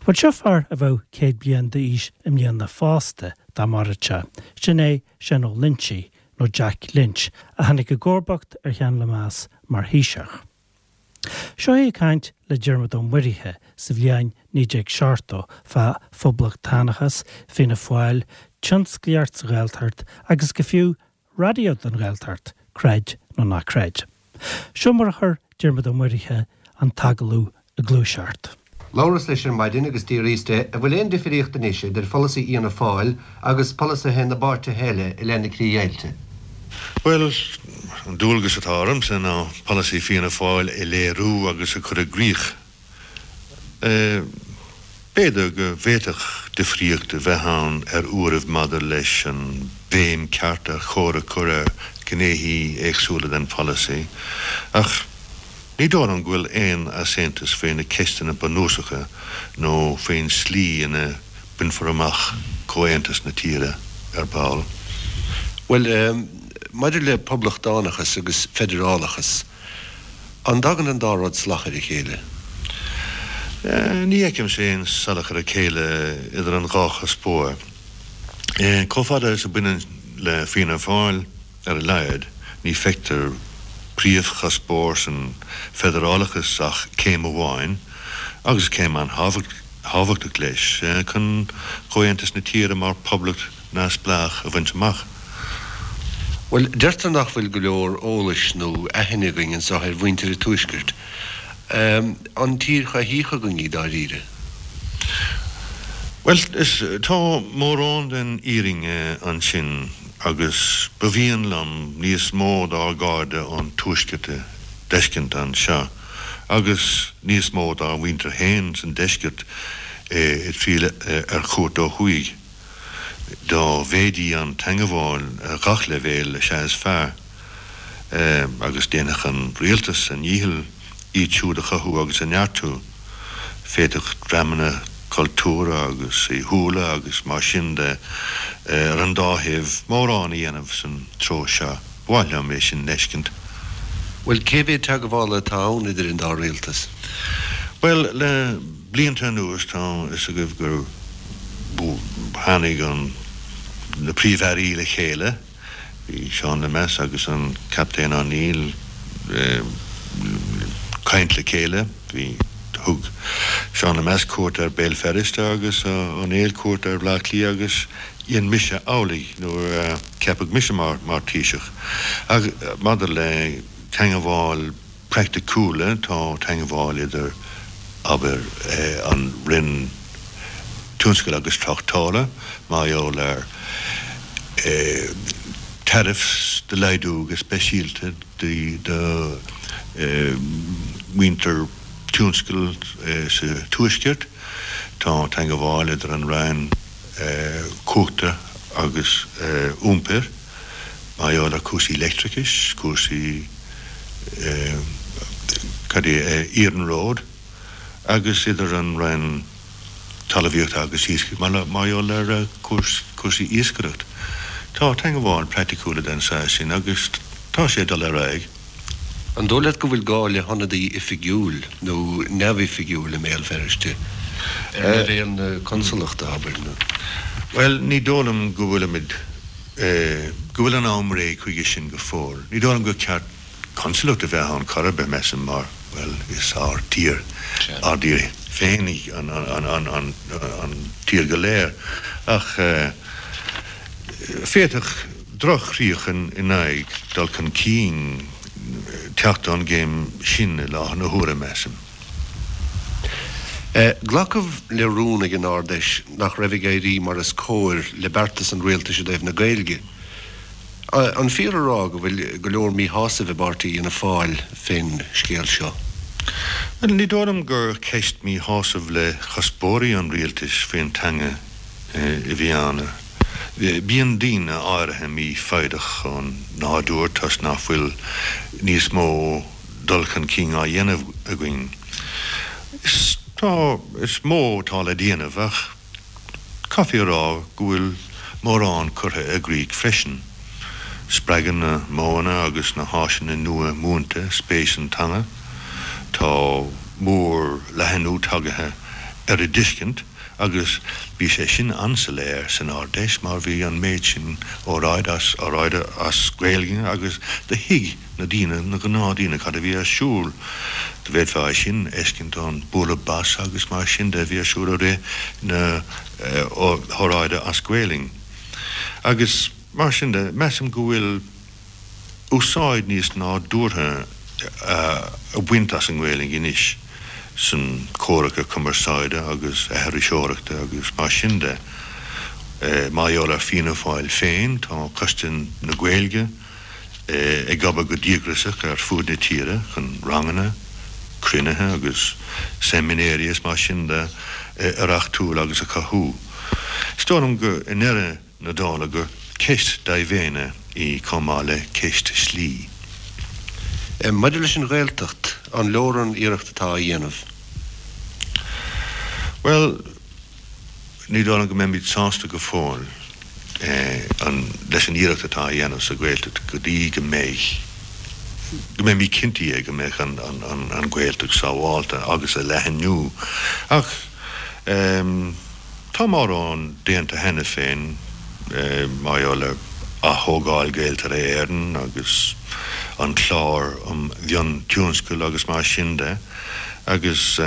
Bhuel, seo fear a bheadh 100 bliain d'aois i mbliana fosta, dá mairfeadh sé. Sin é Seán Ó Loinsigh, nó Jack Lynch, a tháinig i gcomharbacht ar Sheán Lemass mar Thaoiseach. Seo é ag caint le Diarmuid Ó Muirithe sa bhliain 1970 fá phoblachtánachas, Fianna Fáil, tionsclaíocht sa Ghaeltacht agus go fiú raidió don Ghaeltacht, creid nó ná creid. Seo mar a chuir Diarmuid Ó Muirithe an t-agallamh ag gluaiseacht. Labhras leis ar maidin agus d'fhiafraíos de an bhfuil aon difríocht anois idir pholasaí Fhianna Fáil agus polasaithe na bpáirtithe eile i leith na críochdheighilte. Bhuel, an dualgas atá ormsa ná polasaí Fianna Fáil a léiriú agus a chur i gcrích. B'fhéidir go bhféadfadh difríocht a bheith ann ar uairibh maidir leis an bhéim ceart ar chóir a chur ar ghnéithe éagsúla den pholasaí, ach ní dóigh liom go bhfuil aon easaontas faoi na ceisteanna bunúsacha nó faoin slí ina mbainfear amach comhaontas na tíre ar ball. Bhuel, maidir le poblachtánachas agus feidearálachas, An dtagann an dá rud salach ar a chéile? Ní fheicimse aon salach ar a chéile idir an dhá chuspóir. Chomh fada is a bhaineann le Fianna Fáil, ar a laghad, ní feictear príomhchuspóir san feidearálachas ach céim amháin, agus céim an-thábhachtach leis, chun comhaontas na tíre mar phoblacht neamhspleách a bhaint amach. Bhuel, deirtear nach bhfuil go leor eolais nó aithne againn anseo ar mhuintir an Tuaiscirt. An tír choimhthíoch againn í dáiríre? Bhuel, is, tá mórán den fhírinne ansin agus ba mhian liom níos mó dár gcairde ón Tuaisceart a d'fheiscint anseo agus níos mó dár mhuintir féin san Deisceart ag triall ar chuairt ó thuaidh. Dá mhéadaí an teangabháil ar gach leibhéal is ea is fearr, agus déanfadh an rialtas a ndícheall iad siúd a chothú agus a neartú. Féadfaidh dreamanna cultúrtha agus saoithiúla agus mar sin de ar an dá thaobh mórán a dhéanamh san treo seo. Ba mhaith liom é sin d'fheiscint. Bhuel, cé mhéad teagmhála atá ann idir an dá rialtas? Bhuel, le blianta anuas tá fhios agaibh gur tháinig an na príomh-airí le chéile, bhí Seán Lemass agus an Captaen O'Neill ag caint le chéile, bhí, thug Seán Lemass cuairt ar Béal Feirste agus O'Neill cuairt ar Bhleá Cliath agus dhein mise amhlaidh nuair a ceapadh mise mar mar Taoiseach. Ach maidir le teangabháil praiticiúla, tá teangabháil idir, abair, an Roinn Tionscail agus Tráchtála mar gheall ar tariffs do laghdú go speisialta do mhuintir tionscail sa Tuaisceart. Tá teangabháil idir an Roinn Cumhachta agus Iompair mar gheall ar chúrsaí leictreachais, cúrsaí cad é, iarnróid agus idir an Roinn Talmhaíochta agus Iascaigh mar gheall ar chúrsaí iascaireacht. Tá teangabháil praiticiúla den saghas sin agus tá sé ag dul ar aghaidh. An dóigh leat go bhfuil gá le hionadaí oifigiúil nó neamhoifigiúil i mBéal Feirste, ar leibhéal na consalachta, abair, nó? Bhuel, ní dóigh liom go bhfuilimid, go bhfuil an am réidh chuige sin go fóill. Ní dóigh liom gur ceart consalacht a bheith ann chor ar bith, measaim, mar, bhuel, is ár dtír, ár dtír féin í an tír go léir. Ach féadfaidh droch-chríoch in aghaidh dul chun cinn teacht ón gcéim sin i láthair na huaire, measaim. Glacadh le rún ag an Ard-Fheis nach raibh ag éirí mar is cóir le beartas an rialtais i dtaobh na Gaeilge. An fíor a rá go bhfuil go leor míshásaimh i bpáirtí Fhianna Fáil fén scéal seo? Bhuel, ní dóigh liom gur ceist míshásaimh le cuspóirí an rialtais faoin teanga a bhí ann. Bíonn daoine áirithe mífhoighdeach ó nádúr toisc nach bhfuil níos mó dul chun cinn á dhéanamh againn. Is tá, is mó atá le déanamh ach caithfí a rá go bhfuil mórán curtha i gcrích freisin. Spreagann na modhanna agus na háiseanna nua múinte spéis sa teanga. Tá mór-leathnú tagaithe. ar a dtuiscint agus bhí sé sin an-soiléir san Ard-Fheis mar bhí an méid sin óráid as óráide as Gaeilge agus do thuig na daoine, na gnáthdhaoine cad a bhí ar siúl. D'fhéadfá é sin a fheiscint ón bualadh bos agus mar sin de a bhí ar siúl i rith na hóráide as Gaelainn. Agus mar sin de, measaim go bhfuil úsáid níos nádúrtha á baint as an nGaelainn anois san comhraca cumarsáide agus aithriseoireachta agus mar sin de. Mar gheall ar Fianna Fáil féin, tá Coiste na Gaeilge ag obair go díograiseach ar fuaid na tíre chun ranganna, cruinnithe agus seimineáirí is mar sin de a reachtúil agus a chothú. Is dóigh liom go i ndeireadh na dála gur ceist dea-mhéine í chomh maith le ceist slí. Maidir leis an Ghaeltacht, an leor an iarracht atá á dhéanamh? Bhuel, ní dóigh liom go mbeimid sásta go fóill leis an iarracht atá á dhéanamh sa Ghaeltacht go dtí go mbeidh, go mbeimid cinntithe go mbeidh an Ghaeltacht sábhálta agus a leathnú. Ach. Tá mórán déanta cheana féin mar gheall ar ath-thógáil Ghaeltarra Éireann agus an clár um mhiontionscail agus mar sin de agus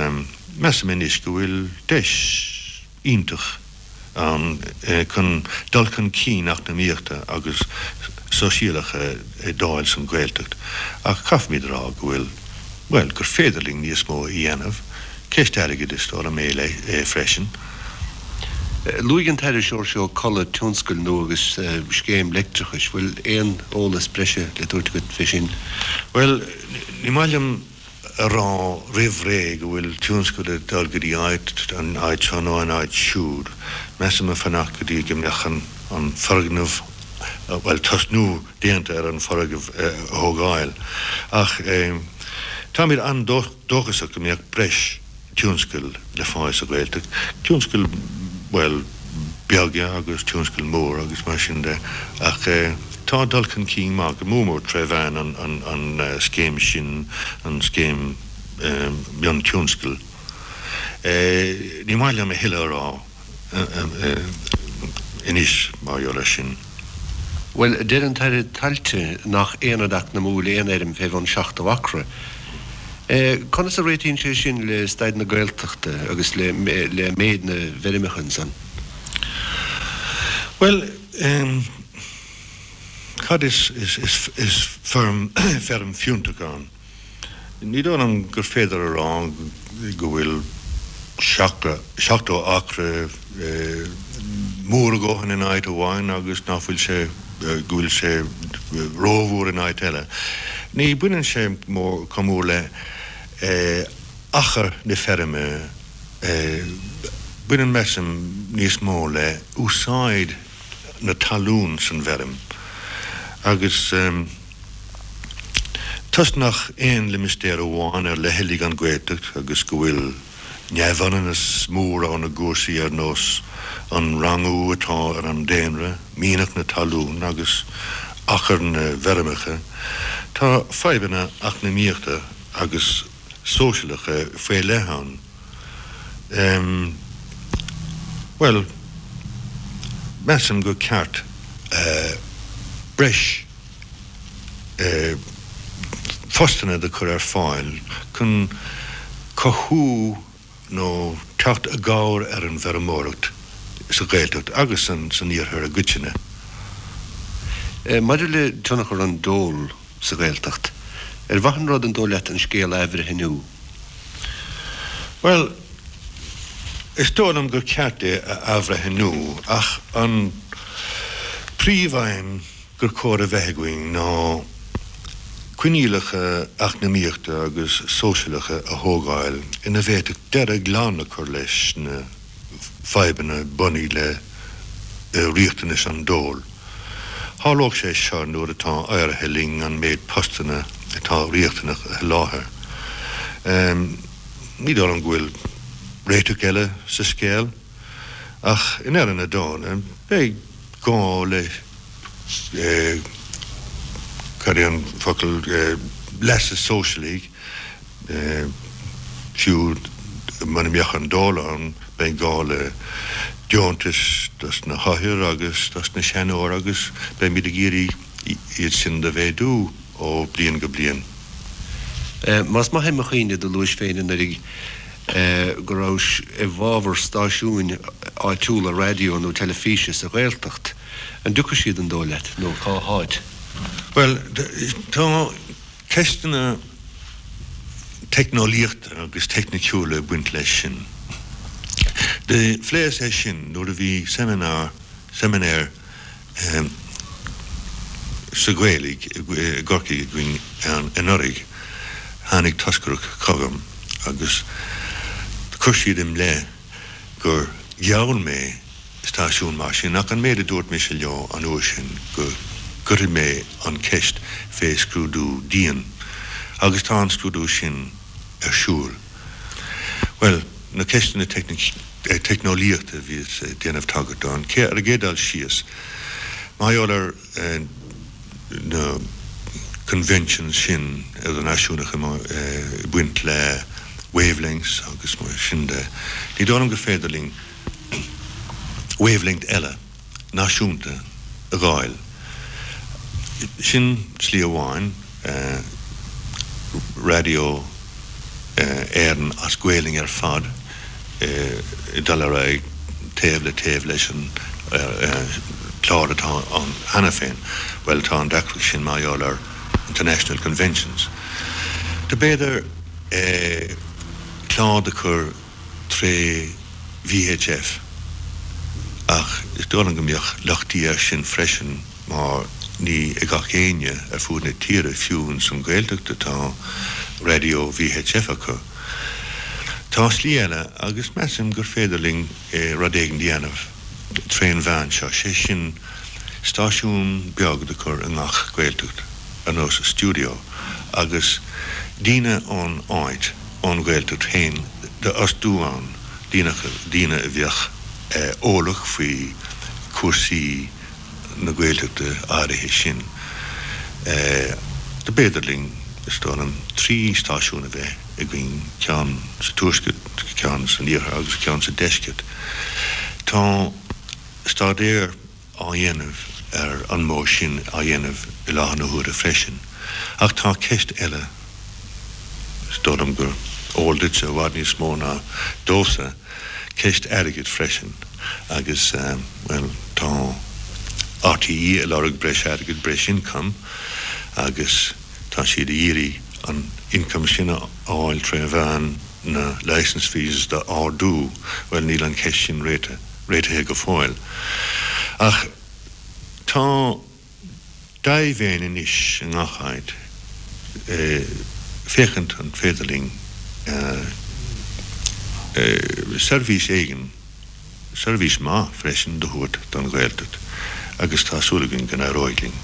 measaim anois go bhfuil deis iontach ann chun dul chun cinn eacnamaíochta agus sóisialach a fháil san Ghaeltacht ach caithfimid a rá go bhfuil, bhuel, gur féidir linn níos mó a dhéanamh. Ceist airgid is dóigh liom é freisin. Luaigh an tAire Seoirse Ó Colla tionscail nua agus scéim leictreachais. Bhfuil aon eolas breise le tabhairt agat fé sin? Bhuel, ní maith liom a rá roimh ré go bhfuil tionscal ag dul go dtí áit, an áit seo nó an áit siúd. Measaim a fanacht go dtí go mbeadh an foirgneamh, bhuel, tosnú déanta ar an foirgneamh a thógáil. Ach táimid an-dóchasach. dóchasach go mbeadh breis tionscail le fáil sa Ghaeltacht, tionscail, bhuel, beaga agus tionscail mór agus mar sin de ach tá dul chun cinn maith, go mór mór tré mheán an scéim sin, an scéim miontionscail. Ní maith liom a thuilleadh a rá. anois mar gheall air sin. Bhuel, deir an tAire Tailte nach aonad eacnamúil aon fheirm fé bhun 70 acra. Conas a réitíonn sé sin le staid na Gaeltachta agus le méid na bhfeirmeacha ansan? Bhuel, cad is feirm fiúntach ann? Ní dóigh liom gur féidir a rá go bhfuil 70 acra mór a dhóthain in áit amháin agus nach bhfuil sé, go bhfuil sé rómhór in áit eile. Ní bhaineann sé chomh mór le achar na feirme, baineann, measaim, níos mó le úsáid na talún san bhfeirm agus. Toisc nach aon limistéar amháin ar leithligh an Ghaeltacht agus go bhfuil neamhionannas mór ann i gcúrsaí ar nós an rangú atá ar an daonra, mianach na talún agus achar na bhfeirmeacha, tá fadhbanna eacnamaíochta agus sóisialacha faoi leith ann. Bhuel, measaim gur ceart breis postanna do chur ar fáil chun cothú nó teacht i gcabhair ar an bhfeirmeoireacht sa Ghaeltacht agus san Iarthar i gcoitinne. Maidir le tionchar an dole sa Ghaeltacht, ar mhaith an rud an dóigh leat an scéal a athbhreithniú? Bhuel, is dóigh liom gur ceart é a athbhreithniú ach an príomhaidhm gur chóir a bheith againn ná coinníollacha eacnamaíochta agus sóisialacha a thógáil ina bhféadfadh deireadh glan a chur leis na fadhbanna bunaidh le riachtanais an dóil. Tharlódh sé seo nuair atá éirithe linn an méid postanna atá riachtanach a sholáthar. Ní dóigh liom go bhfuil réiteach eile sa scéal, ach i ndeireadh na dála beidh gá le, cad é an focal, leasa sóisialaigh, fiú. Muna mbeadh an dól ann, beidh gá le deontais dos na hothair agus dos na seanóir agus beimid ag iarraidh iad sin do mhéadú ó bliain go bliain. Más maith é mo chuimhne, do luais féin anuraidh go rabhais i bhfabhar stáisiúin áitiúla raidió nó teilifíse sa Ghaeltacht. An dtiocfaidh siad an dóigh leat, nó cá háit? Bhuel, tá ceisteanna teicneolaíochta agus teicniciúla ag baint leis sin. Do phléas é sin nuair a bhí seimineár, seiminéar sa Ghaeilge i gCorcaigh againn anuraidh. Tháinig toscaireacht chugam agus chuir siad im leith gur gheall mé stáisiún mar sin ach an méid a dúirt mise leo an uair sin go gcuirfidh mé an cheist fé scrúdú dian agus tá an scrúdú sin ar siúl. Bhuel, na ceisteanna teicneolaíochta a bhíos ag déanamh tagairt dó, an chéad, ar an gcéad dul síos, mar gheall ar na conventions sin idirnáisiúnacha ag baint le wavelengths agus mar sin de, ní dóigh liom gur féidir linn wavelength eile náisiúnta a dh'fháil. Sin slí amháin, Raidió Éireann as Gaolainn ar fad ag dul ar aghaidh taobh le taobh leis an chlár atá ann cheana féin. Bhuel, tá an deacracht sin mar gheall ar international conventions. Do b'fhéidir clár do chur tré VHF, ach is dóigh liom go mbeadh lochtaí air sin freisin mar ní ag gach éinne ar fuaid na tíre, fiú ins an Ghaeltacht, atá raidió VHF acu. Tá slí eile agus measaim gur féidir linn rud éigin a dhéanamh trén mheán seo, sé sin stáisiún beag do chur i ngach Gaeltacht, ar nós stiúideo, agus daoine ón áit, ón Ghaeltacht féin d'fhostú ann, daoine, daoine a bheadh eolach faoi chúrsaí na Gaeltachta áirithe sin. Do b'fhéidir linn, is dóigh liom, 3 stáisiún a bheith againn, ceann sa Tuaisceart, ceann san Iarthar agus ceann sa Deisceart. Tá staidéar. á dhéanamh ar an modh sin á dhéanamh i láthair na huaire freisin. Ach tá ceist eile, is dóigh liom gur eol duitse i bhfad níos mó ná domhsa, ceist airgid freisin agus, bhuel, tá RTÉ ag lorg breis airgid, breis income agus tá siad ag iarraidh an income sin a fháil tré mheán na licence fees d'ardú. Bhuel, níl an cheist sin réitithe. réitithe go fóill. Ach tá dea-mhéin anois i ngach áit féachaint an féidir linn seirbhís éigin, seirbhís maith freisin, do thabhairt don Ghaeltacht agus tá súil againn go n-éireoidh linn.